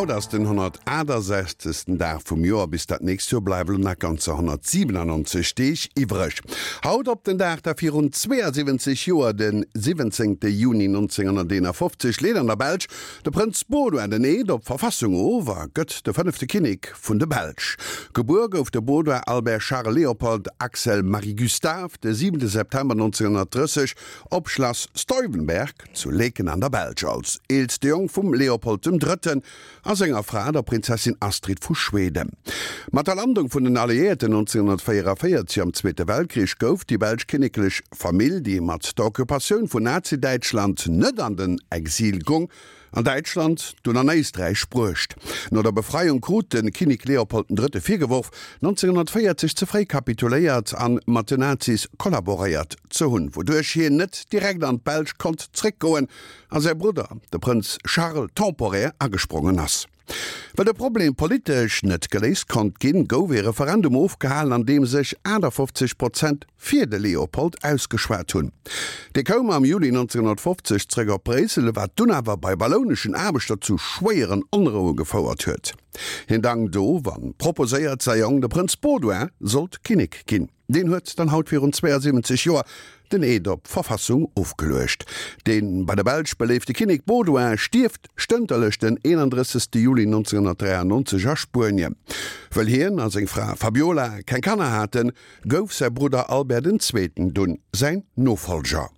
Haut ass den 168. Dag vum Joer, bis dat nächst Joer bleiwe lo nach ganzer 197 Deeg iwwreg. Haut op den Dag da virun 72 Joer, de 17. Juni 1951, leet an der Belsch de Prënz Baudouin den Eed op d'Verfassung of a gëtt de fënnefte Kinnek vun de Belsch. Gebuer gouf de Baudouin Albert Charles Léopold Axel Marie Gustave de 7 September 1930 op Schlass Stuyvenberg zu Laeken an der Belsch als eelste Jong vum Leopold dem Drëtten a senger Fra, der Prinzessin Astrid vu Schweden. Mat der Landung vun den Alliéierten 1944 am Zweete Weltkrich gouf déi belsch kinneklech Famill, déi mat der Occupatioun vun Nazi-Däitschland net an den Exil gong, an Däitschland, dunn an Éisträich bruecht. No der Befreiung krut de Kinnek Leopold den Drëtte virgeworf, 1940 ze fréi kapituléiert an mat den Nazis kollaboréiert ze hunn, wouduerch hien net direkt an d'Belsch konnt zréckgoen a säi Brudder, de Prënz Charles, temporär agesprongen ass. Well de Problem politesch net geléist konnt ginn, gouf ee Referendum ofgehalen, an deem sech 58 Prozent fir de Leopold ausgeschwat hunn. Dee koum am Juli 1950 zréck op Bréissel, wat dunn awer bei wallouneschen Aarbechter zu schwéieren Onroue gefouert huet. Hien dankt of a proposéiert, säi Jong, de Prënz Baudouin, sollt Kinnek ginn. Deen huet dann haut virun 72 Joer den Eed op d'Verfassung ofgeluecht. Dee bei der Belsch beléifte Kinnek Baudouin stierft stënterlech den 31. Juli 1993 a Spuenien. Wëll hien a seng Fra Fabiola keng Kanner haten, gouf säi Brudder Albert den Zweeten dunn säin Nofollger.